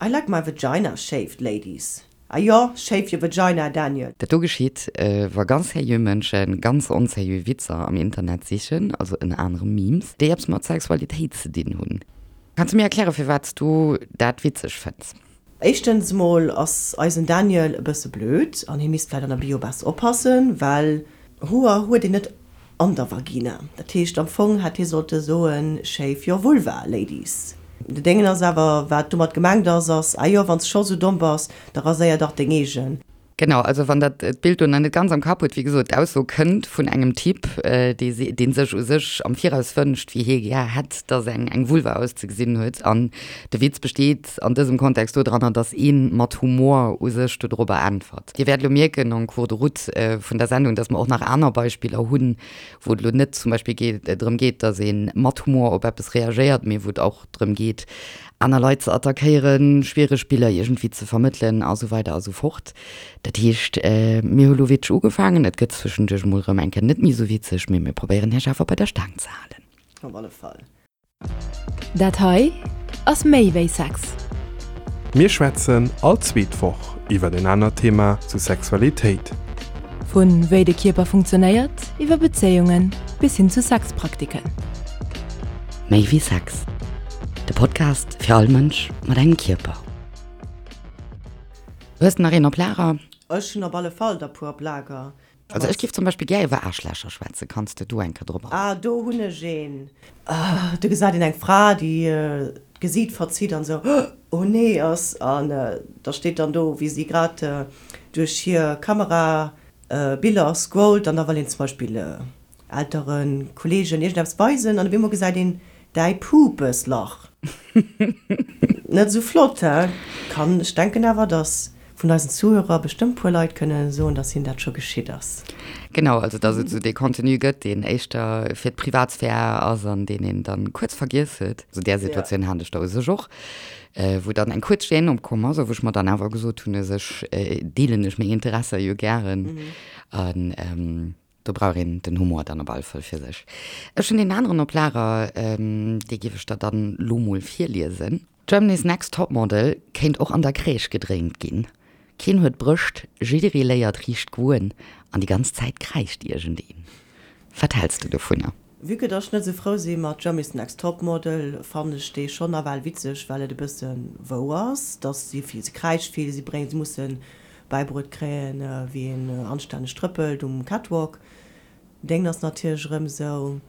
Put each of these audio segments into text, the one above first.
I like my vagina shaved, ladies. Ah jo, shave your vagina, Daniel. Dat do geschitt, wa ganz seriö Mënsche ganz onseriö Witzer am Internet sichen, also ënner anerem Memes, déi eppes mat Sexualitéit ze dinn hunn. Kanns du mir erklären, firwat s du dat witzeg fënns? Éischtens mol ass eisen Daniel e bësse blöd an hie misst vläit an der Bio besser oppassen, well Hoer huet een net an der Vagina. Dat heescht am Fong hätt hie sollte soen shave your vulva, ladies. De Déngen ass awer, wat domat gemengt ass, ass, ah jo, wann s scho sou domm bass, da raséier dach deng eegen. Genau, also wann der d'Bild do nach net ganz am Kapp hutt, wéi gesot, d'Ausso kënnt vun engem Typ, dee dee sech u sech am Viraus wënscht, wéi hie gär hätt, dass eng eng Vulva auszegesinn huet. An de Witz besteet an dësem Kontext dodranner, dass ee mat Humor u sech dodrobber äntwert. Dir wäert elo mierken en cours de route vun der Sendung, dass mer och nach aner Beispiller hunn, wou et elo net zum Beispill geet, drëm geet, dass ee mat Humor op eppes reagéiert, mee wou et och drëm geet, aner Leit ze attackéieren, schwiereg Biller iergendwéi ze vermëttelen a sou weider a sou fort. Dat heescht, mir hu lo witzeg ugefaangen, et gëtt zwëschenduerch emol erëm eng Kéier net méi sou witzeg, mee mir probéieren Iech awer bei der Staang ze halen. Op alle Fall. Dat hei ass méi wéi Sex. Mir schwätzen all zweet Woch iwwer en anert Thema zu Sexualitéit. Vu wéi de Kierper funktionéiert, iwwer Bezéiungen bis hin zu Sexpraktiken. Méi wéi Sex, de Podcast fir all Mënsch mat engem Kierper. Hues de nach een op Lager? Ech hunn op alle Fall der puer op Lager. Also ech giff zum Beispill gär iwwer Aarschlächer schwätzen. Kanns de do eng Kéier drop agoen? Ah, do hunn ech een. Do gesäit een eng Fra, déi d'Gesiit verzitt an esou oh nee ass. An da steet dann do, wéi si grad duerch hir Kamera Biller scrollt an da wëll een zum Beispill Elteren, Kollegen iergendeppes weisen an op eemol gesäit een däi Pupeslach. Net esou flott, he? Kann, ech denken awer, dass vun eisen Zuhörer bestëmmt puer Leit kënne soen, dass hinnen dat scho geschitt ass. Genau, also dass et esou dee Contenu gëtt, deen éischter fir d'Privatsphär ass an deen een dann kuerz vergiess huet. Esou där Situatioun hat ech da u sech och, wou dann eng kuerz Gêne opkomm ass a wou ech mer dann awer gesot hunn, u sech deelen ech meng Interesser jo gären an Do brauch een den Humor dann op alle Fall fir sech. Ech hunn deen aneren op Lager, dee giff ech der dann lo mol virliesen. Germany's Next Topmodel kéint och an der Crèche gedréint ginn. Keen huet Brëscht, jidderee léiert riicht goen an déi ganz Zäit kräischt iergendeen. Wat häls de dovunner? Vue que dass ech net esou frou si mat Germany's Next Topmodel, fannen ech dee schonn nawell witzeg, well et e bësse wouer ass, dass si vill, se kräischt vill, si bréngt, se musse bäibruet kréien, wéi een anstänneg trëppelt um Catwalk. Déngen ass natierlech erëm esou,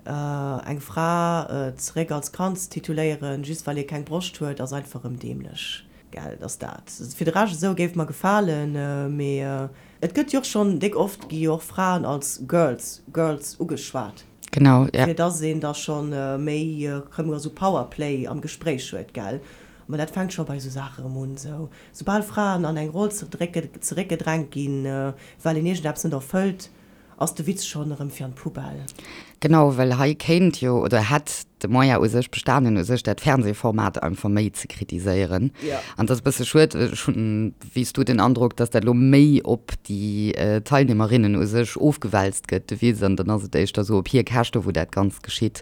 eng Fra zeréck als Kand ze tituléieren, just well ee keng Broscht huet, ass einfach erëm dämlech, gell, dass dat fir de Rescht esou géif mer gefalen, mee Et gëtt jo och schonn déck oft gi jo och Fraen als Girls, Girls ugeschwat. Genau, ja. Fir dass een da schonn méi erëm esou Powerplay am Gespréich huet, gell. Mä dat fänkt scho bei esou Saache erëm un, esou soubal Fraen an eng Roll zeréckgedrängt ginn, well een iergendeppes net erfëllt, ass de Witz schonn erëm fir an d'Poubelle. Genau, well hei kéint jo oder hätt de Moyen u sech bestanen, u sech dat Fernsehformat einfach méi ze kritiséieren. An et ass e bësse schued, ech hunn, wéi s du, den Androck, datt dat elo méi op déi Teilnehmerinnen u sech ofgewälzt gëtt, de Witz, an dann ass et éischter esou op hir Käschte wou dat Ganzt geschitt.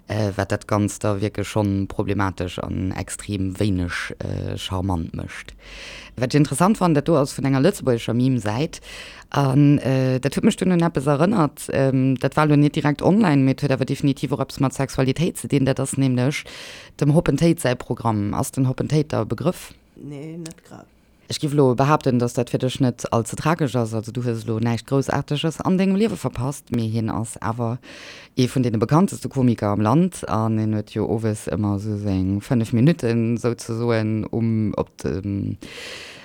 Wat dat Ganzt da wierklech schonn problematesch an extrem wéineg charmant mécht. Wat ech interessant fannen, dat do ass vun enger lëtzebuergescher Meme-Säit an dat huet mech dunn un eppes erënnert, dat war elo net direkt online, mee et huet awer definitiv och eppes mat Sexualitéit ze dinn, dat ass nämlech dem Hoppen Téid säi Programm. Ass den Hoppen Téid der e Begrëff? Nee, net grad. Ech giff elo behaapten, dass dat fir dech net all ze tragesch ass. Also du hues elo näischt Groussaarteges an dengem Liewe verpasst, mee hien ass awer ee vun deene bekannteste Komiker am Land an hien huet jo owes ëmmer esou seng 5 Minutten souzesoen um op dem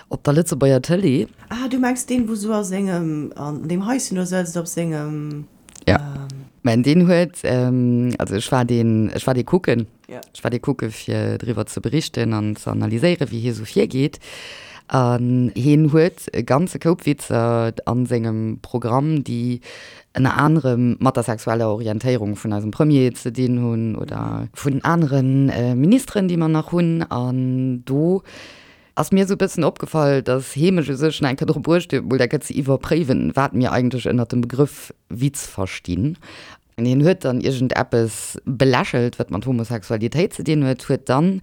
op der Lëtzebuerger Tëlee. Ah, du mengs deen, wou sou a sengem, an deem Haischen do sëtzt, op sengem. Ja. Mä deen huet, also ech war deen, ech war dee kucken. Ech war dee kucke fir driwwer ze berichten an ze analyséieren, wéi hie sou virgeet. An hien huet e ganze Koup Witzer a sengem Programm, déi ënner anerem mat der sexueller Orientéierung vun eisem Premier ze dinn hunn oder vun anere Ministeren, déi mer nach hunn. An do ass mir esou e bëssen opgefall, dass hee mech u sech nach eng Kéier dru bruecht huet, mol dat Ganzt ze iwwerpréiwen, wat mir eigentlech ënnert dem Begrëff Witz verstinn. Hien huet dann iergend eppes belächelt, wat mat Homosexualitéit ze dinn huet, huet dann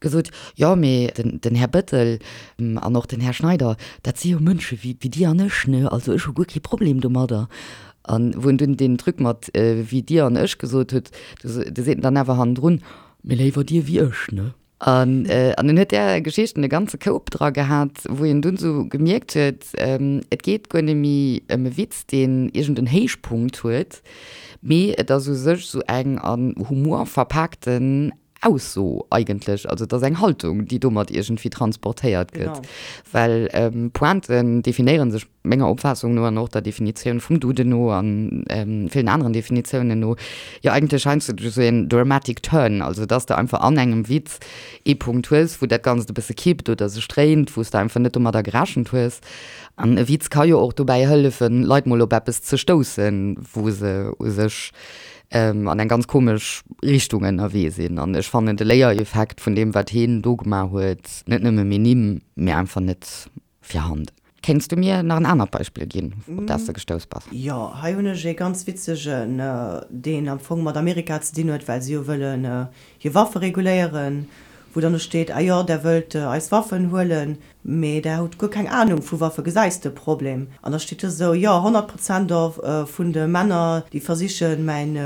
gesot, jo mee den Här Bëttel an och den Här Schneider, dat si jo Mënsche wéi Dir an ech, ne, also ech hu guer kee Problem domadder. An wou en dunn deen Truc mat wéi Dir an ech gesot huet, do seet en dann awer hannendrun, mee léiwer Dir wéi ech, ne. An en huet där Geschichten e ganze Koup dra gehat, wou een dunn esou gemierkt huet, et geet guer net méi ëm e Witz, deen iergend en Héichpunkt huet, mee et ass u sech esou eng an Humor verpaakten Ausso eigentlech. Also et ass eng Haltung, déi domat iergendwéi transportéiert gëtt. Well Pointen definéiere sech menger Opfaassung no an och der Definitioun vum Duden no an villen aneren Definitiounen no, jo eigentlech heiansdo duerch esou een dramatic turn, also dass de einfach an engem Witz ee Punkt hues, wou dat Ganzt e bësse kippt oder sech dréint, wou s de einfach net domadder gerechent hues. An e Witz ka jo och dobäi hëllefen, Leit mol op eppes ze stoussen, wou se u sech an eng ganz komesch Richtung ënnerwee sinn. An ech fannen de Léiereffekt vun deem, wat heen do gemaach huet, net nëmme minim, mee einfach net virhanden. Kéints du mir nach en anert Beispill ginn, op dat s de gestouss bass? Jo, hei hunn ech ee ganz witzegen, deen am Fong mat Amerika ze dinn huet, well si jo wëllen hir Waffe reguléieren, wou dann do steet, Ah jo, där wëllt eis Waffen huelen, mee där hutt guer keng Anung vu Waffe, gesäis de Problem? An da steet do esou, Jo, 100 Prozent vun de Männer, déi versichen, mäin,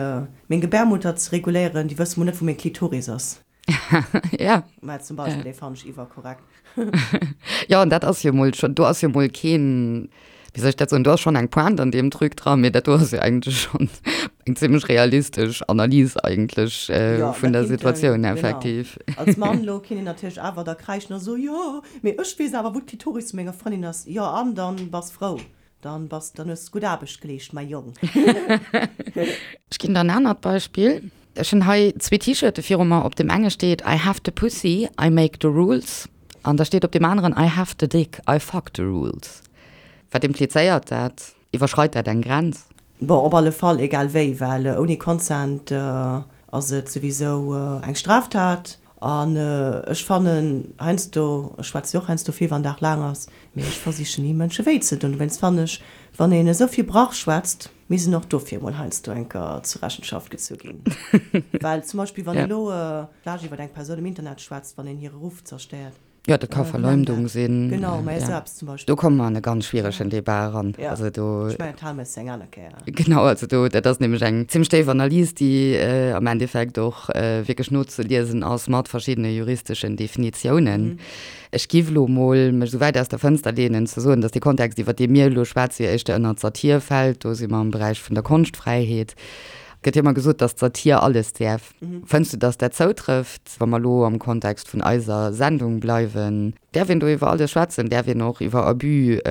meng Gebärmutter ze reguléieren, déi wësse mol net, wou meng Klitoris ass. Ja. Mä zum Beispill, dee fannen ech iwwerkorrekt. Jo, an dat ass jo mol schon, do ass jo mol keen, wéi soll ech dat soen, do ass schon eng Pointe an deem Truc dran, mee dat do ass jo eigentlech schon eng zimmlech realistesch Analys eigentlech Jo, vun da der kinnt en, Situatioun genau, effektiv. als Mann elo kinnt een natierlech awer da kräischen a soen, jo, mee ech weess awer, wou d'Klitoris vu menger Frëndin ass. Jo, an dann bass frou, dann bass, dann hues gutt Aarbecht geleescht, mäi Jong. Ech ginn der en anert Beispill. Ech hunn hei zwee T-Shirte viru mer. Op deem enge steet I have the pussy, I make the rules. An da steet op deem aneren I have the dick, I fuck the rules. Wat implizéiert dat? Iwwerschreit dat eng Grenz? Bon, op alle Fall, egal wéi, well ouni Consent ass et souwisou eng Straftat. An ech fannen heiansdo, ech schwätze jo och heiansdo vill, wann Dag laang ass, mee ech versichen ni Mënsche wéi ze doen. Dowéinst fannen ech, wann een esou vill Brach schwätzt, misst en och dofir emol heiansdo eng Kéier zur Rechenschaft gezu ginn. Well zum Beispill wann een elo vläch iwwer eng Persoun am Internet schwätzt, wann een hire Ruff zerstéiert. Jo, dat ka Verleumdung sinn. Genau, mä esou eppes zum Beispill. Do komme mer an e ganz schwieregen Debat eran. Jo, Also do. ech mengen, dat hale mer eis eng aner Kéier. Genau, also do, dat ass nämlech eng zimmlech déif Analys, déi am Endeffekt och wierklech nozeliesen ass mat verschiddene juristeschen Definitiounen. Ech giff elo mol mech esou wäit aus der Fënster leenen ze soen, datt dee Kontext, iwwer dee mir elo schwätzen, jo éischter ënnert d'Satir fält. Do si mer am Beräich vun der Konschtfräiheet. Et gëtt jo ëmmer gesot, datt d'Satir alles däerf. Fënns du, datt dat zoutrëfft, wa mer elo am Kontext vun eiser Sendung bleiwen? Däerf een do iwwer alles schwätzen? Däerf een och iwwer Abus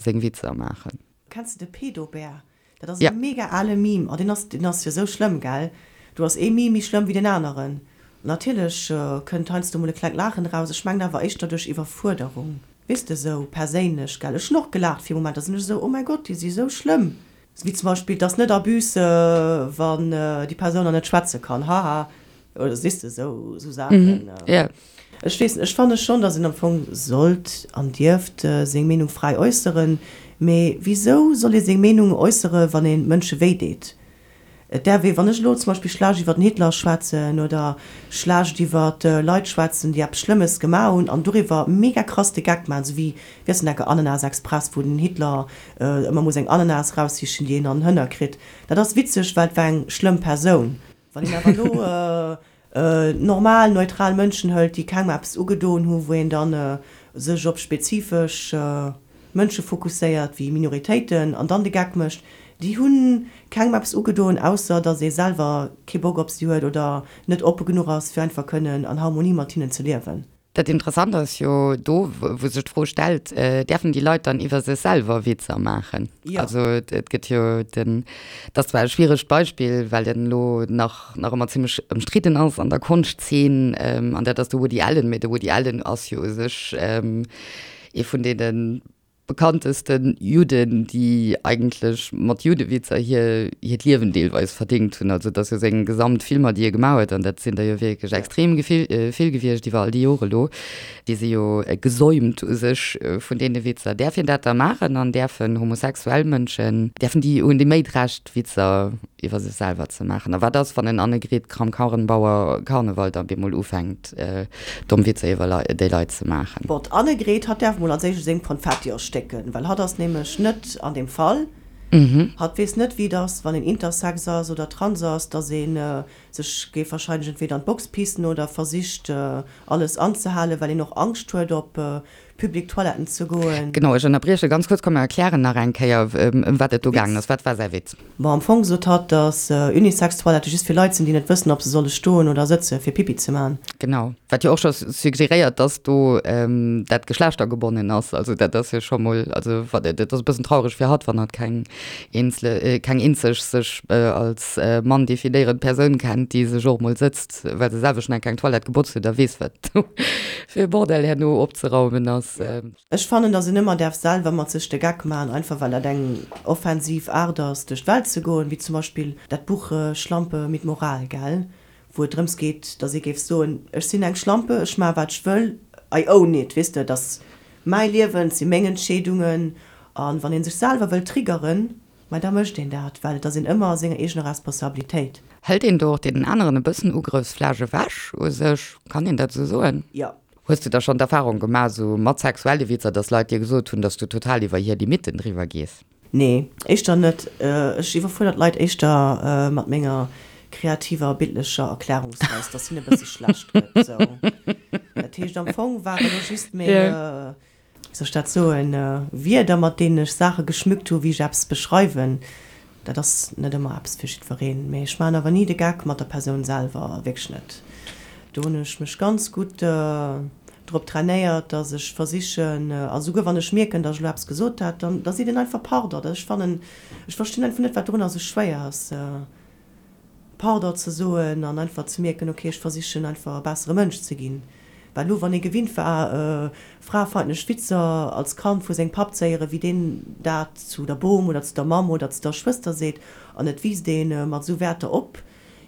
seng Witzer maachen? Kenns de de Pedobär? Dat ass e mega ale Meme. Oh, deen ass, deen ass jo sou schlëmm, gell? Do ass ee Meme méi schlëmm wéi deen aneren. Natierlech kënnt heiansdo mol e klengt Laachen eraus, ech mengen awer éischter duerch Iwwerfuerderung. Weess de, sou perséinlech, gell? Ech hunn och gelaacht fir e Moment, da sinn ech esou, oh mäi Gott, déi si sou schlëmm. Wéi zum Beispill, 't ass net Abus, wann déi Persoun nach net schwätze kann, haha. Oder sees de, esou Saachen. Ech weess net, ech fanne schonn, datt een am Fong sollt an dierft seng Meenung fräi äusseren. Mee wisou soll ee seng Meenung äussere wann ee Mënsche wéi deet? Et däerf ee, wann ech elo zum Beispill schlecht iwwer den Hitler schwätzen oder schlecht iwwer Leit schwätzen, déi eppes Schlëmmes gemaach hunn an doriwwer mega krass de Geck maachen, esou wéi, wéi ass den enke, Ananas Express, wou den Hitler ëmmer muss eng Ananas eraussichen, déi een an den Hënner kritt. Dat ass witzeg, well et war eng schlëmm Persoun. Wann een awer elo normal, neutral Mënschen hëlt, déi kengem eppes ugedoen hu, wou een dann sech op spezifesch Mënsche fokusséiert, wéi Minoritéiten, an dann de Geck mécht, déi hu kengem eppes ugedoen, ausser datt ee selwer kee Bock op si huet oder net oppe genuch ass, fir einfach kënnen an Harmonie mat hinnen ze liewen. Dat Interessant ass jo do, wou sech d'Fro stellt, Däerfen déi Leit dann iwwer sech selwer Witzer maachen? Jo. Also et gëtt jo den, dat ass zwar e schwieregt Beispill, well en elo nach nach ëmmer zimmlech ëmstridden ass an der Konschtzeen, an dat ass de Woody Allen. Mee de Woody Allen ass jo u sech ee vun deene. bekanntesten Judden, déi eigentlech mat Juddewitzer hir hiert Liewen deelweis verdéngt hunn. Also et ass jo seng gesamt Filmer, déi e gemaach huet, an dat sinn der jo wierklech extrem vill gewiescht iwwer all déi Jore elo, déi si jo gesäumt u sech vun deene Witzer. Däerf een dat da maachen an däerfen homosexuell Mënschen, däerfen déi, hunn déi méi d'Recht Witzer iwwer sech selwer ze maachen? A wat ass, wann en Annegret Kramp-Karrenbauer Karneval da bemol ufänkt domm Witzer iwwer déi Leit ze maachen? Bon, d'Annegret, hatt däerf mol als éischt u sengem Konfetti erstécken, well hatt ass nämlech net an deem Fall. Hatt weess net, wéi et ass, wann een intersex ass oder trans ass, dass ee sech géif wahrscheinlech entweder an d'Box pissen oder versicht, alles anzehalen, well een och Angscht huet, op public Toiletten ze goen. Genau, ech ënnerbrieche ganz kuerz. Komm, mer erklären nach eng Kéier, ëm wat et do gaangen ass. Wat war säi Witz? Bon, am Fong sot hatt, dass Unisex-Toilette just fir Leit sinn, déi net wëssen, ob se solle stoen oder sëtze fir Pipi ze man. Genau, wat jo och scho suggeréiert, dass do dat geschlechtergebonnen ass. Also dat ass jo scho mol, also wat, dat ass e bëssen traureg fir hatt, wann hatt keng eenzele, keng eenzeg sech als Mann definéierend Persoun kennt, déi sech och mol sëtzt. Well se selwer schon eng kleng Toilette gebotzt huet a weess wat do fir e Bordell herno opzeraumen ass. Ech fannen dass een ëmmer däerf selwer mat sech de Geck maachen, einfach well dat eng offensiv Aart ass duerch d'Welt ze goen, wéi zum Beispill dat Buch Schlampe mit Moral, gell, wou et drëms geet dass ee géif soen, ech sinn eng Schlampe, ech maache wat ech wëll, I own it, weess de, et ass mäi Liewen, et si meng Entscheedungen an wann ee sech selwer wëll triggeren, Mä da mécht een dat, well et ass een ëmmer a senger eegener Responsabilitéit. Hëlt een do och deenen aneren e bëssen Ugrëffsfläch ewech u sech? Kann een dat esou soen? Jo. Hues du da schonn d'Erfarung gemaach, esou mat sexuelle Witzer, dass Leit dir gesot hunn, dass du total iwwer hir Limitten driwwer gees? Nee, éischter net. Ech iwwerfuerdern d'Leit éischter mat menger kreativer bildlecher Erklärungsweis, dass hinne e bësse schlecht gëtt. Sou. Dat heescht, am Fong war elo just meng. wéi soll ech dat soen, Wierder, mat deenen ech Saache geschmückt hu wéi ech eppes beschreiwen, dat ass net ëmmer eppes fir jiddwereen. Mee ech maachen awer ni de Geck mat der Persoun selwer, wierklech net. Do hunn ech mech ganz gutt drop trainéiert, dass ech versichen, a souguer wann ech mierken, dass ech elo eppes gesot hat, dann da seet een einfach Pardon. Ech fannen, ech verstinn einfach net, wat dorunner esou schwéier ass. Pardon ze soen an einfach ze mierken, ok, ech versichen einfach e bessere Mënsch ze ginn. Well elo, wann ee gewinnt war, fraefeindlech Witzer als Kand vu sengem Papp ze héieren, wéi deen dat zu der Bom oder zu der Mamm oder zu der Schwëster seet, an et wiisst ee mat esou Wäerter op,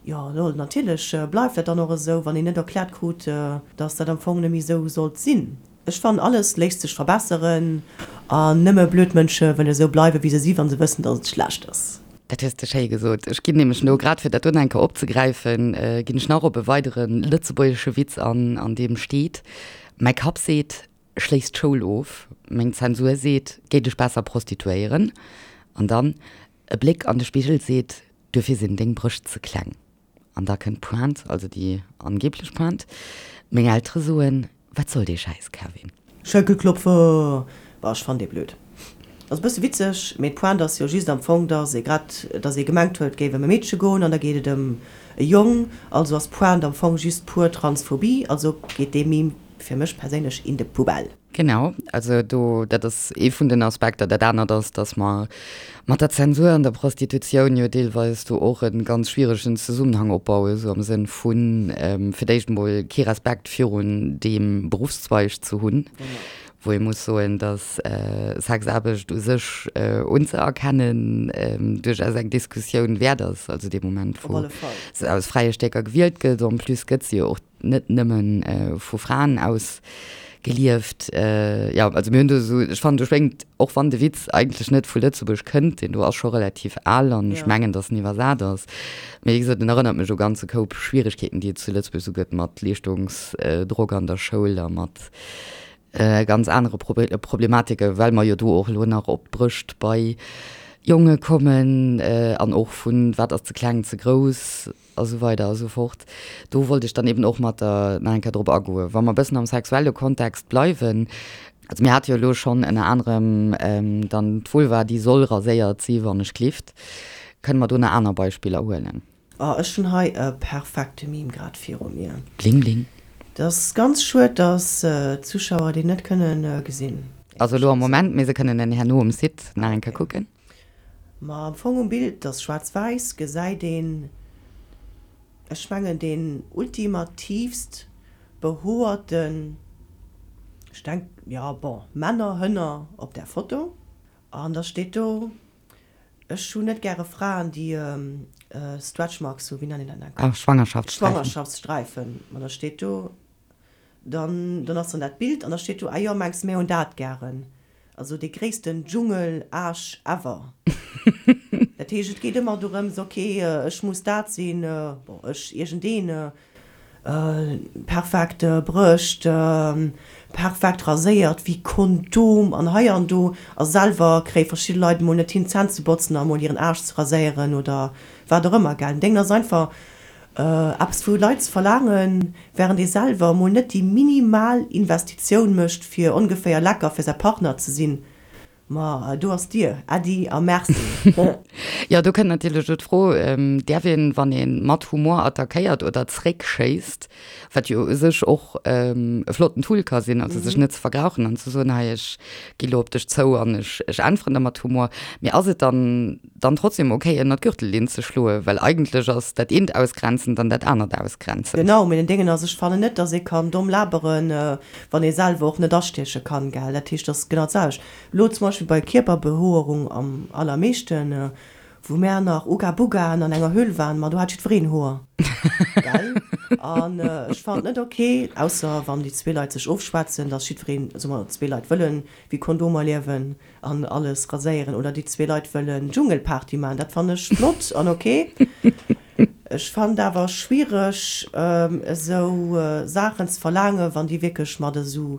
jo, lol, natierlech bleift dat dann och esou, wann een net erkläert krut, dass dat am Fong net méi esou sollt sinn. Ech fannen alles léisst sech verbesseren an nëmme blöd Mënsche wëlle sou bleiwe wéi se si wann se wëssen dass et schlecht ass. Dat hues de schéi gesot. Ech ginn nämlech elo, grad fir dat do nach eng Kéier opzegräifen, ginn ech nach op e weidere lëtzebuergesche Witz an, an deem steet, Mäi Kapp seet, schléiss d'Schoul of, meng Zensur seet, géi dech besser prostituéieren. An dann, e Bléck an de Spigel seet, duerfir sinn deng Brëscht ze kleng. An da kënnt d'Pointe, also déi angeblech Pointe, Meng Eltere soen, Wat soll dee Schäiss, Kevin? Schenkelklopfer! Bah, ech fannen dee blöd. Ass e bësse witzeg, mee d'Pointe ass jo just am Fong, dass ee grad, dass ee gemengt huet, et géif ëm e Meedche goen an da geet et ëm e Jong. Also ass d'Pointe am Fong just pur Transphobie. Also geet dee Meme fir mech perséinlech in de Poubelle. Genau, also do, dat ass ee vun den Aspekter. Dat anert ass, datt mer mat der Zensur an der Prostitutioun jo deelweis do och e ganz schwieregen Zesummenhang opbauen, esou am Sënn vu fir d'éischt emol kee Respekt virun deem Beruffszweig ze hunn, wou ee muss soen, datt Sexaarbecht u sech unzëerkennen duerchaus eng Diskussioun wäert ass, also dee Moment, wou se aus fräie Stécker gewielt gëtt. En plus gëtt se jo och net nëmmen vu Fraen aus gelieft. Jo, also mir hunn do esou, ech fannen do schwéngt, och wann de Witz eigentlech net vu Lëtzebuerg kënnt, deen do ass scho relativ al an ech mengen, datt en iwwersat ass, mee wéi gesot, en erënnert mech u ganze Koup Schwieregkeeten, déi et zu Lëtzebuerg esou gëtt mat Leeschtungsdrock an der Schoul a mat ganz anere Problematike, well mer jo do och elo nach op d'Brëscht bei Jonge kommen an och vun wat ass ze kleng, ze grouss. A sou weider a sou fort. Do wollt ech dann eben och mat der nach eng Kéier drop agoen. Wa mer e bëssen am sexuelle Kontext bleiwen, also mir hate jo elo schonn ënner anerem dann d'Vulva, déi soll raséiert si wann ech glift. Kënne mer do nach aner Beispiller huelen? Oh, ech hunn hei e perfekte Meme grad viru mir. Bling bling. Et ass ganz schued, dass d'Zuschauer deen net kënnen gesinn. Also elo am Moment, mee se kënnen en herno um Site nach eng Kéier kucken. Ma am Fong um Bild, dat ass schwaarz-wäiss, gesäit een, ech mengen deen ultimativst behoerten. Ech denk, jo, bon, Männer, Hënner op där Foto. An da steet do, Ech hunn net gäre Fraen, déi Stretch Marks hunn, wéi nennt een dat nach? Ah, Schwangerschaftssträifen. Schwangerschaftssträifen. Ma da steet do, dann, dann ass dann dat Bild an da steet do, Ah jo, mengs mär hunn dat gären. Also dee gréissten Dschungel-Aarsch ever. Dat heescht, et geet ëmmer dorëms, ok, ech muss dat sinn, bon, ech, iergendeen, Perfekt Brëscht, perfekt raséiert wéi Kondom an hei an do a selwer kréie verschidde Leit emol net hin d'Zänn ze botzen a mol hiren Aarsch ze raséieren oder wat och ëmmer gell. Deng ass einfach eppes vu Leit ze verlaangen, während ee selwer emol net déi minimal Investitioun mécht fir ongeféier lecker fir säi Partner ze sinn. Ma do ass d'Dier, Äddi a Merci. Jo, do kënnt natierlech elo d'Fro, Däerf een, wann ee mat Humor attackéiert oder zréckschéisst, wat jo u sech och e flotten Tool ka sinn, also sech net ze vergrauchen an ze soen, hei ech gi lo op dech zou an ech äntweren der mat Humor, mee ass et dann dann trotzdem ok ënner d'Gürtellinn ze schloen? Well eigentlech ass dat eent ausgrenzend an dat anert ausgrenzend. Genau, mee den Déngen ass, ech fannen net, datt ee kann domm laberen, wann ee selwer och net astieche kann, gell. Dat heescht, dat ass genau d'selwecht. Elo zum Beispill bei Kierperbehoerung am allermeeschten, wou mär nach Uga Bugaen an enger Höhl waren, ma do hat jiddwereen Hoer, gell. An ech fannen et net ok, ausser wann déi zwee Leit sech ofschwätzen, dass jiddwereen, soe mer zwee Leit wëllen wéi Kondomer liewen an alles raséieren, oder déi zwee Leit wëllen Dschungelparty maachen, dat fannen ech flott an ok. Ech fannen et awer schwiereg esou Saachen ze verlaangen, wann déi wierklech mat esou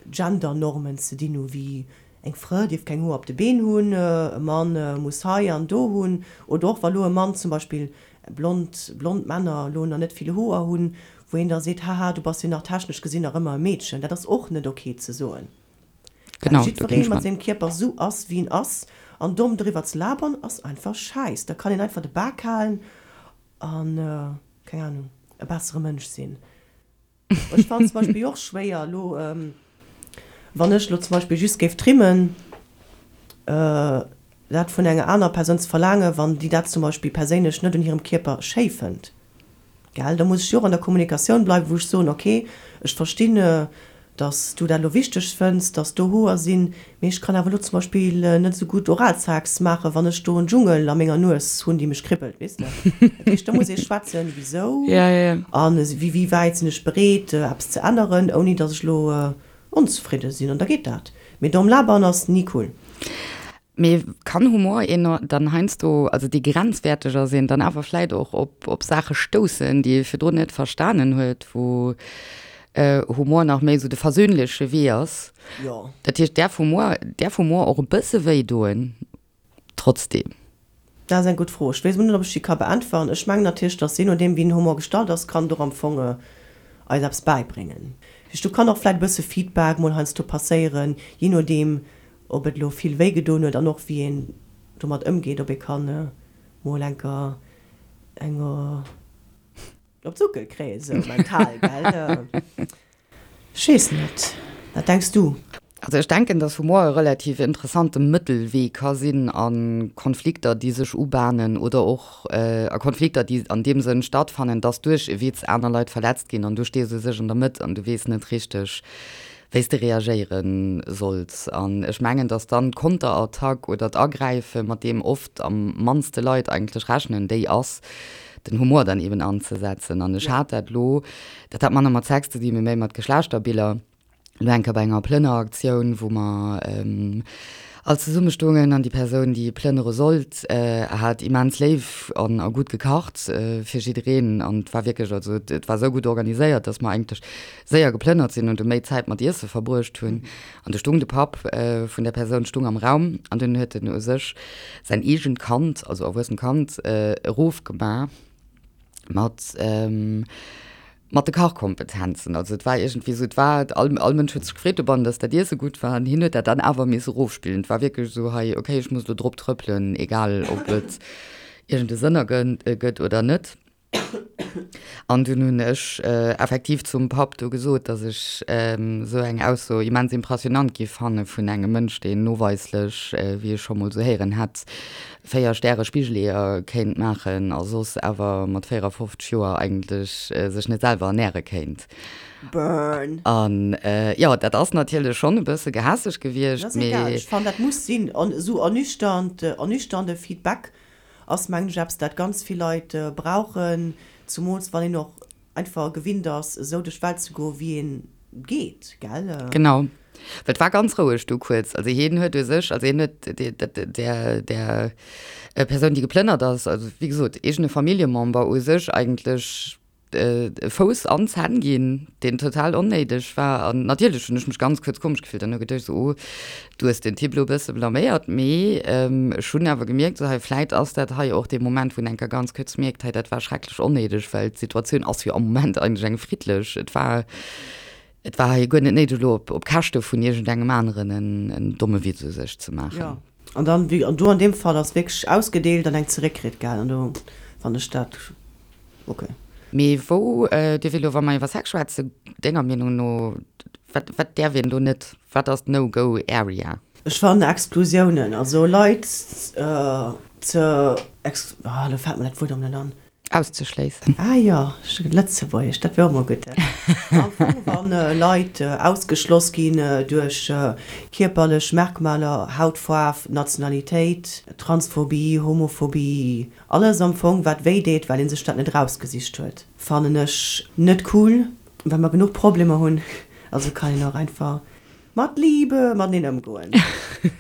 Gendernormen ze dinn hu wéi eng Frë dierf keng Hoer op de Been hunn, e Mann muss hei an do hunn, oder och wa lo e Mann zum Beispill, blond, blond Männer lo nach net vill Hoer hunn, wou een da seet, haha du bass jo nach technesch gesinn nach ëmmer e Meedchen. Dat ass och net ok ze soen, well jiddweree mat sengem Kierper esou ass wéi en ass an domm driwwer ze labern ass einfach schäiss. Da kann een einfach de Bak halen an, keng Ahnung, e bessere Mënsch sinn. Ech fannen zum Beispill och schwéier elo, wann ech elo zum Beispill just géif trimmen, dat vun enger anerer Persoun ze verlaangen, wann déi dat zum Beispill perséinlech net un hirem Kierper schéi fënnt. Gell? Da muss ech jo och an der Kommunikatioun bleiwen, wou ech soen, ok, ech verstinn, dass du dat elo wichteg fënns, dass do Hoer sinn, mee ech kann awer elo zum Beispill net esou gutt Oralsex maachen, wann ech do en Dschungel a menger Nues hunn, déi mech kribbelt, weess de. Dat heescht, do muss ee schwätzen, wisou an wéi wäit sinn ech bereet, eppes ze änneren, ouni dass ech elo onzefridde sinn. An da geet dat. Mee domm labern ass ni cool. Mee kann Humor een dann heiansdo, also dee grenzwäerteg ass, een dann awer vläit och op, op Saache stoussen, déi ee virdrun net verstanen huet, wou Humor nach méi esou de versöhnleche Wee ass? Jo. Dat heescht, däerf Humor, däerf Humor och e bësse wéi doen trotzdem? Dat ass eng gutt Fro. Ech weess emol net, ob ech déi ka beäntweren. Ech mengen natierlech, datt jee nodeem wéi den Humor gestalt ass, kann et och am Fong eis eppes bäibréngen. Dat heescht, do kann och vläicht e bësse Feedback mol heiansdo passéieren, jee nodeem ob et elo vill wéi gedoen huet an och wéi een domat ëmgeet, ob ee kann mol enker eng op d'Suckel kréien, esou mental, gell? Ech weess net, wat denks du? Also ech denken, dass Humor e relativ interessante Mëttelwee ka sinn a Konflikter, déi sech ubahnen oder och a Konflikter, déi an deem Sënn stattfannen, dass duerch e Witz aner Leit verletzt ginn an du stees u sech an der Mëtt an du weess net richteg, wéi s de reagéiere solls. An ech mengen, dass dann d'Konterattack oder d'Agräife, mat deem oft am mannste Leit eigentlech rechnen, déi ass, den Humor dann eben anzesetzen. An ech hat dat elo, dat hat manner mat Sex ze dinn, mee méi mat Geschlechterbiller, elo eng Kéier bei enger Plënneraktioun, wou mer all zesumme stoungen an déi Persoun, déi plënnere sollt, hat immens léif an a gutt gekacht fir jiddereen. An et war wierklech, also et war esou gutt organiséiert, dass mer eigentlech séier geplënnert sinn an du méi Zäit mat Iesse verbruecht hunn. An du stung de Papp vun där Persoun stung am Raum an dunn huet en u sech säin eegent Kand, also erwuessent Kand, erofgema mat mat de Kachkompetenzen. Also et war iergendwéi esou, et war, all all Mënsch huet sech gefreet dobannen, datt dat Iesse gutt war an hien huet dat dann awer misse erofspillen. Et war wierklech esou, hei, okay, ech muss elo drop trëppelen, egal ob et iergend e Sënn ergëtt oder net. An dunn hunn ech effektiv zum Papp do gesot, datt ech esou eng Ausso immens impressionant giff fanne vun engem Mënsch, deen noweislech, wéi ech scho mol esou héieren hätt, 4 Stäre Spigeleeër kéint maachen a soss awer mat 54 Joer eigentlech sech net selwer ernäre kéint. Burn! An jo, dat ass natierlech schonn e bësse gehässeg gewiescht, Dat ass egal, mee. ech fannen dat muss sinn. An esou ernüchternd, ernüchternde Feedback ass mengen ech eppes dat ganz vill Leit brauchen, zumools wann een och einfach gewinnt ass esou duerch d'Welt ze goen wéi een geet, gell? Genau, well et war ganz roueg du kuerz. Also hien huet u sech, also hien huet där där Persoun déi geplënnert ass, also wéi gesot eegene Familljemember u sech eigentlech e Fouss an d'Zänn ginn, deen total onnéideg war. An natierlech hunn ech mech ganz kuerz komesch gefillt an hu geduecht esou, oh, du hues den Typ elo e bësse blaméiert. Mee ech hunn awer gemierkt, esou hei, vläit ass dat hei och dee Moment, wou een eng Kéier ganz kuerz mierkt, hei, dat war schrecklech onnéideg, well d'Situatioun ass jo am Moment eigentlech eng friddlech. Et war, et war hei guer net néideg, elo op Käschte vun iergendengem aneren en domme Witz u sech ze maachen. Jo, an dann, wéi, an do an deem Fall ass wierklech ausgedeelt an eng zeréckkritt, gell, an do fannen ech dat. Ok. Mee wou dierf ee lo, wa mer iwwer Sex schwätzen, denger Meenung no, wat, wat däerf een do net? Wat ass d'No Go Area? Ech fannen Exklusiounen, also Leit ze ex, ah lo fält mer dat Wuert erëm net an. Auszeschléissen. Ah jo, Lëtzebuergesch, dat wär och mol gutt. Am Fong, wann Leit ausgeschloss ginn duerch kierperlech Merkmaler, Hautfaarf, Nationalitéit, Transphobie, Homophobie, Alles am Fong wat wéi deet, well een sech dat net erausgesicht huet, fannen ech net cool, well mer genuch Problemer hunn. Also kann een och einfach mat Liebe mateneen ëmgoen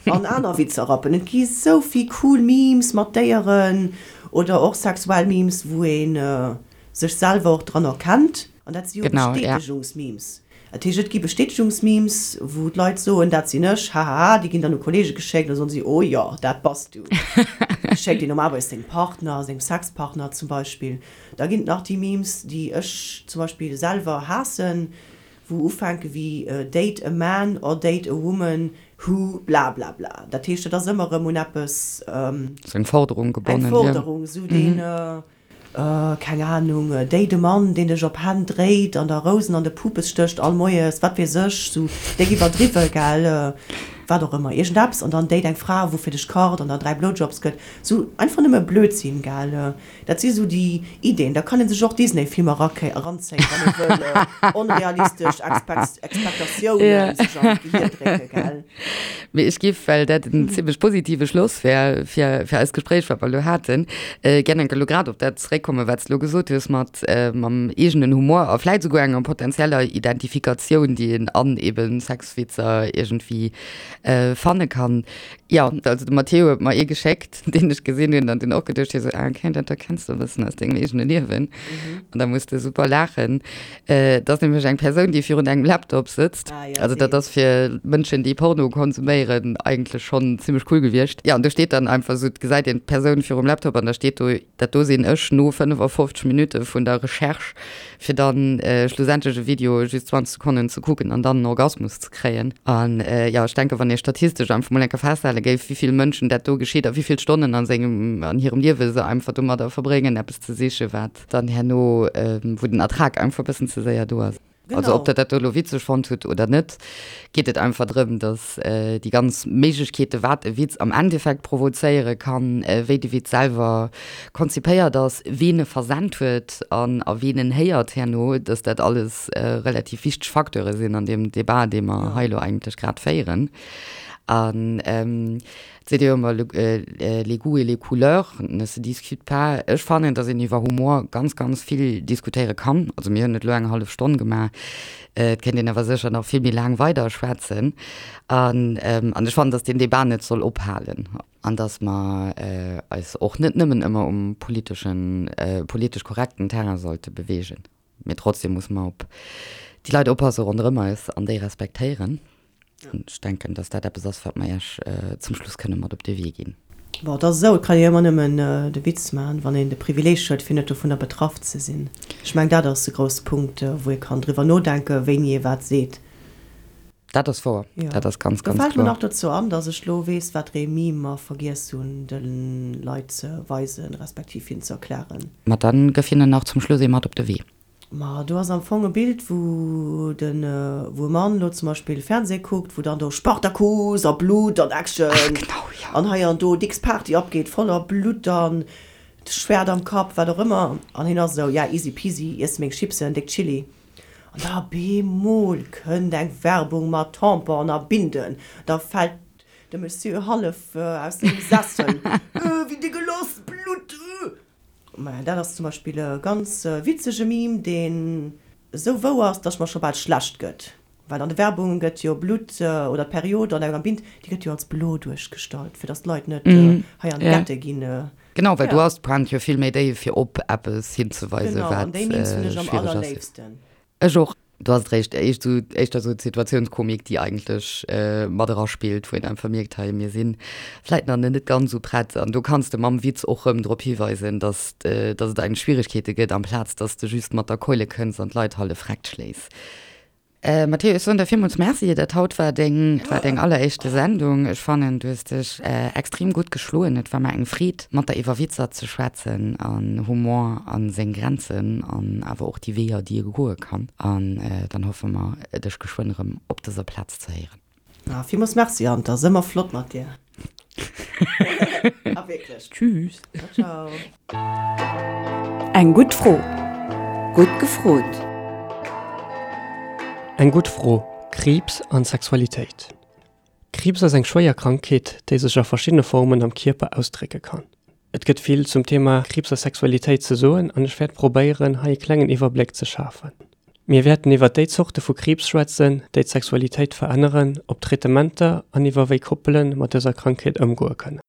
an aner Witzer rappen. Et gi sou vill cool Memes mat Déieren oder och sexuell Memes, wou ee sech selwer och dran erkennt. An dat si jo Bestätegungsmemes. Dat heescht, et gi Bestätegungsmemes, wou d'Leit soen, dat sinn ech, hahaha. Déi ginn dann u Kolleege geschéckt, da soen si, oh jo, dat bass du. Déi schéckt een normalerweis sengem Partner, sengem Sexpartner zum Beispill. Da ginn et nach déi Memes, déi ech zum Beispill selwer haassen, wou ufänke wéi date a man or date a woman who blablabla. Dat heescht, dat ass ëmmer erëm un eppes. Sou eng Forderung gebonnen, jo. Eng Forderung, sou deen. Keng Ahnung, déi de Mann, deen dech op Hänn dréit an der Rousen an de Pupes stécht all Moies, wat weess ech, sou déck iwwerdriwwe, gell, wat och ëmmer, iergendeppes, an dann date eng Fra, wou fir dech kacht an der 3 Blowjobs gëtt, sou einfach nëmme Blödsinn, gell, dat si sou déi Ideen. Da kann ee sech och Disney-Filmer eranzéien, wann ee wëll onrealistesch Expectatiounen sech an d'Gehir drécke, gell. Mee ech giff, well dat en zimlech positive Schloss wär fir, fir eist Gespréich, wat mer elo haten, gär enke elo grad op dat zeréckkommen, wat s de elo gesot hues mat, mam eegenen Humor a vläit esouguer enger potenzieller Identifikatioun, déi een an eben Sexwitzer iergendwéi fanne kann. Jo, also de Matteo huet mer ee geschéckt, deen ech gesinn hunn an dunn och geduecht hu sou, ah okay, dat do kenns de e bëssen aus dengem eegene Liewen. An da muss de super laachen. Et ass nämlech eng Persoun, déi virun engem Laptop sëtzt. Ah, ja, also dat ass fir Mënschen, déi Porno konsuméieren, eigentlech schonn zimmlech cool gewiescht. Ja, an do steet dann einfach esou, et gesäit een d'Persoun virum Laptop an da steet do, dat do sinn ech no 55 Minutte vun der Recherche, fir dann schlussendlech e Video just 20 Sekonnen ze kucken an dann en Orgasmus ze kréien. An jo, ech denken, wann ee statistesch einfach mol eng Kéier festhale géif, wéi vill Mënschen dat do geschitt a wéi vill Stonnen a sengem, an hirem Liewe se einfach domadder verbréngen, eppes ze sichen, wat. Dann herno, wou den Ertrag einfach e bëssen ze séier do ass. Also ob Der dat do elo witzeg fonnt hutt oder net, geet et einfach drëm, datt déi ganz Méiglechkeete wat e Witz am Endeffekt provozéiere kann, wéi de Witz selwer konzipéiert ass, ween e versent huet an a ween en héiert herno, datt dat alles relativ wichteg Facteure sinn an deem Debat, dee mer hei elo eigentlech grad féieren. An Et seet ee jo ëmmer, les goûts et les couleurs ne se discutent pas. Ech fannen, datt een iwwer Humor ganz, ganz vill diskutéiere kann. Also mir hunn et elo eng hallef Stonn gemaach, et kéint een awer sécher nach vill méi laang weider schwätzen. An an ech fannen, datt deen Debat net soll ophalen an datt mer eis och net nëmmen ëmmer um politeschen, politesch korrekten Terrain sollte beweegen. Mee trotzdem musse mer op déi Leit oppasse ronderëm eis an déi respektéieren. An ech denken, dass dat eppes ass, wat mer Iech zum Schluss kënne mat op de Wee ginn. Bon, et ass esou, et kann ee jo ëmmer nëmmen de Witz maachen, wann een de Privileeg huet, fir net dovunner betraff ze sinn. Ech mengen, dat ass e grousse Punkt, wou ee kann driwwer nodenken, wéini ee wat seet. Dat ass wouer. Jo. Dat ass ganz, Do ganz fält mir kloer. nach dozou an, dass ech lo weess, wat ree Meme mer vergiess hunn de Leit ze weisen, respektiv hinnen ze erklären. Ma dann gëff hinnen nach zum Schluss ee mat op de Wee. Ma do ass am Fong e Bild, wou den, wou e Mann lo zum Beispill Fernseh kuckt, wou dann do Spartacus a Blutt an Action Ach genau, jo. an hei an do dicks Party abgeet, voller Blutt an Schwert am Kapp, wat och ëmmer. An hien ass esou, ja easy peasy, iess meng Chipsen, déck Chili. An da bemol kënnt eng Werbung mat Tampon a Binden, da fält de Monsieur hallef aus sengem Sessel, Öh, wéi degeloss, Blutt, öh. Maja, dat ass zum Beispill e ganz witzege Meme, deen esou wouer ass, dass mer scho bal schlecht gëtt. Well an de Werbunge gëtt jo Blutt oder d'Period an enger Bind, déi gëtt jo als blo duerchgestallt, fir dass d'Leit net hei an d'Gette ginn. Genau, well do ass d'Pointe jo vill méi déif, fir op eppes hinzeweisen, Genau, an wat déi Memes hunn ech am schwiereg ass. allerléifsten. Ech och. Do ass et réischt éischt esou, éischter esou d'Situatiounskomik, déi eigentlech mat eraspillt, wou een einfach mierkt, hei, mir si vläit nach net ganz esou prett. An do kanns de mam Witz och rëm drop hiweisen, dass, dass et eigentlech Schwieregkeete gëtt, amplaz dass de just mat der Keule kënns an d'Leit hallef vreckt schléis. Matteo, ech soen der villmools Merci. Dat haut war deng, war deng alleréischte Sendung. Ech fannen, du hues dech extrem gutt geschloen. Et war mer eng Freed, mat der iwwer Witzer ze schwätzen an Humor a seng Grenzen an awer och déi Weeër, déi e goe kann. An dann hoffe mer, dech geschwënn erëm op dëser Plaz ze héieren. Ah, villmools Merci, Ant. Ass ëmmer flott mat dir. Ah, wierklech. Tschüss. Ciao, ciao. Eng gutt Fro. Gutt gefrot. Eng gutt Fro, Kriibs an Sexualitéit. Kriibs ass eng schwéier Krankheet, déi sech a verschiddene Formen am Kierper ausdrécke kann. Et gëtt vill zum Thema Kriibs a Sexualitéit ze soen an ech wäert probéieren, hei e klengen Iwwerbléck ze schafen. Mir wäerten iwwer déi Zorte vu Kriibs schwätzen, déi d'Sexualitéit veränneren, op Traitementer an iwwer wéi Koppele mat dëser Krankheet ëmgoe kënnen.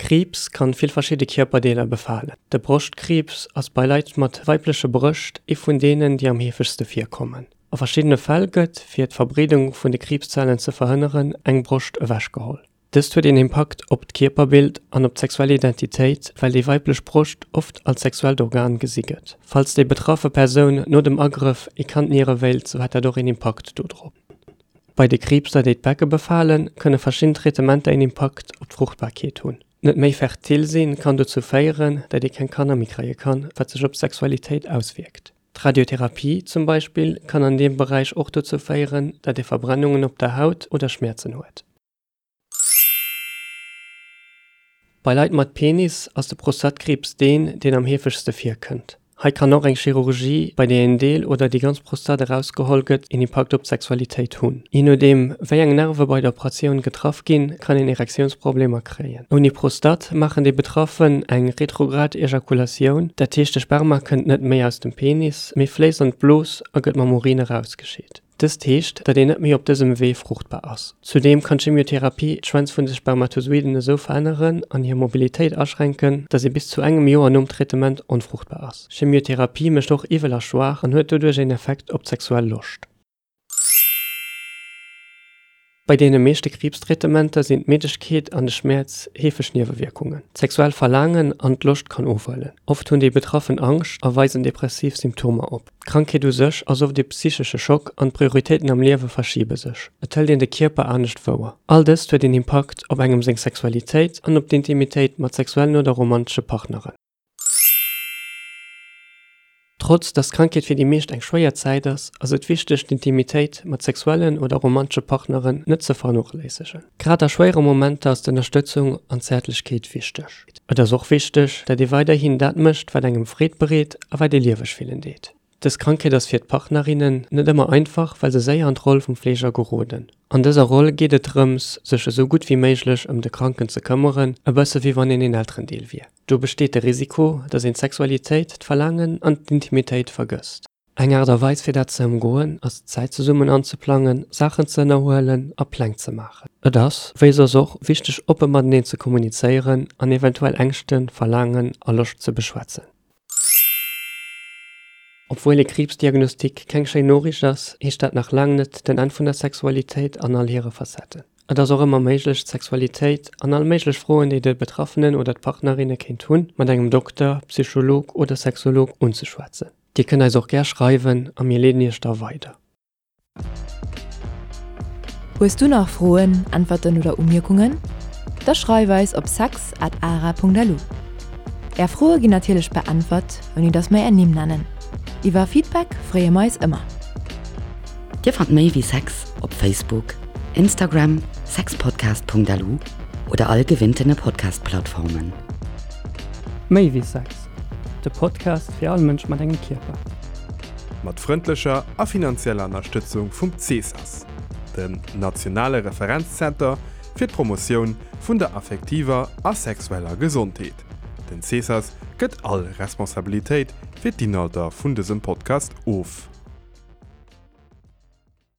Kriibs kann vill verschidde Kierperdeeler befalen. De Broschtkriibs ass bei Leit mat weibleche Brëscht ee vun deenen, déi am heefegste virkommen. A verschiddene Fäll gëtt, fir d'Verbreedung vun de Kriibszellen ze verhënneren, eng Broscht ewechgeholl. Dëst huet een Impakt op d'Kierperbild an op d'sexuell Identitéit, well déi weiblech Broscht oft als sexuellt Organ gesi gëtt. Falls déi betraffe Persoun no dem Agrëff ee Kand niere wéilt, sou hätt dat och een Impakt dodrop. Bei de Kriibser, déi d'Becke befalen, kënne verschidden Traitementer een Impakt op d'Fruchtbarkeet hunn. Net méi fertil sinn kann dozou féieren, dat ee keng Kanner méi kréie kann, wat sech op d'Sexualitéit auswierkt. D'Radiotherapie zum Beispill kann an deem Beräich och dozou féieren, dat ee Verbrennungen op der Haut oder Schmäerzen huet. Bei Leit mat Penis ass de Prostatkriibs deen, deen am heefegste virkënnt. Hei kann och eng Chirurgie, bei där een Deel oder déi ganz Prostat erausgeholl gëtt, een Impakt op d'Sexualitéit hunn. Jee nodeem wéi eng Nerve bei der Operatioun getraff ginn, kann een Erektiounsproblemer kréien. Ouni Prostat maachen déi Betraffen eng retrograd Ejakulatioun, dat heescht de Sperma kënnt net méi aus dem Penis, mee fléisst an d'Blos a gëtt mam Urin erausgescheet. Dëst heescht, datt een net méi op dësem Wee fruchtbar ass. Zudeem kann d'Chemiotherapie d'Schwänz vun de Spermatozoiden esou veränneren an hir Mobilitéit aschränken, datt ee bis zu engem Joer nom Traitement onfruchtbar ass. Chemiotherapie mécht och iwwel a schwaach an huet doduerch een Effekt op d'sexuell Loscht. Bei deene meeschte Kriibstraitementer sinn d'Middegkeet an de Schmäerz heefeg Niewewierkungen. D'sexuell Verlaangen an d'Loscht kann ofhuelen. Oft hunn déi Betraffen Angscht a weisen depressiv Symptomer op. D'Krankheet u sech ass oft ee psychesche Schock an d'Prioritéiten am Liewe verschibe sech. Et hëlt een de Kierper anescht wouer. All dëst huet een Impakt op engem seng Sexualitéit an op d'Intimitéit mat sexuellen oder romantesche Partneren. Trotz dass d'Krankheet fir déi meescht eng schwéier Zäit ass, ass et wichteg d'Intimitéit mat sexuellen oder romantesche Partneren net ze vernochléissegen. Grad a schwéiere Momenter ass d'Ënnerstëtzung an d'Zäertlechkeet wichteg. Et ass och wichteg, dat ee weiderhin dat mécht, wat engem Freed bereet a wat ee lieweg fillen deet. Dës Krankheet ass fir d'Partnerinnen net ëmmer einfach, well se séier an d'Roll vum Fleeger geroden. An dëser Roll geet et drëms, sech esou gutt wéi méiglech ëm de Kranken ze këmmeren, e bësse wéi wann een een Elterendeel wier. Do besteet de Risiko, datt een d'Sexualitéit, d'Verlaangen an d'Intimitéit vergësst. Eng Aart a Weis fir dat ze ëmgoen ass Zäit zesummen anzeplangen, Saachen ze ënnerhuelen a Pläng ze maachen. Et ass, wéi soss och, wichteg oppe mateneen ze kommunizéieren an eventuell Ängschten, Verlaangen a Loscht ze beschwätzen. Obwuel ee Kriibsdiagnostik keng schéin Noriicht ass, heescht dat nach laang net den Enn vun der Sexualitéit an all hire Facetten. Et ass och ëmmer méiglech, d'Sexualitéit an all méiglech Froen, déi de Betraffenen oder d'Partnerinne kéint hunn, mat engem Dokter, Psycholog oder Sexolog unzeschwätzen. Dir kënnt eis och gär schreiwen a mir leeden iech da weider. Hues du nach Froen, Äntwerten oder Umierkungen? Da schreif eis op sex at ara.lu. Är Froe ginn natierlech beäntwert, ouni dass mer är Nimm nennen. Iwwer Feedback freeë mer eis ëmmer. Dir fannt méi wéi Sex op Facebook, Instagram, sexpodcast.lu oder all gewinntene Podcast-Plattformen. Méi wéi Sex, de Podcast fir all Mënsch mat engem Kierper. Mat frëndlecher a finanzieller Ënnerstëtzung vum CESAS, dem nationale Referenzzenter fir d'Promotioun vun der affektiver a sexueller Gesondheet. Den CESAS gëtt all Responsabilitéit fir d'Inhalter vun dësem Podcast of.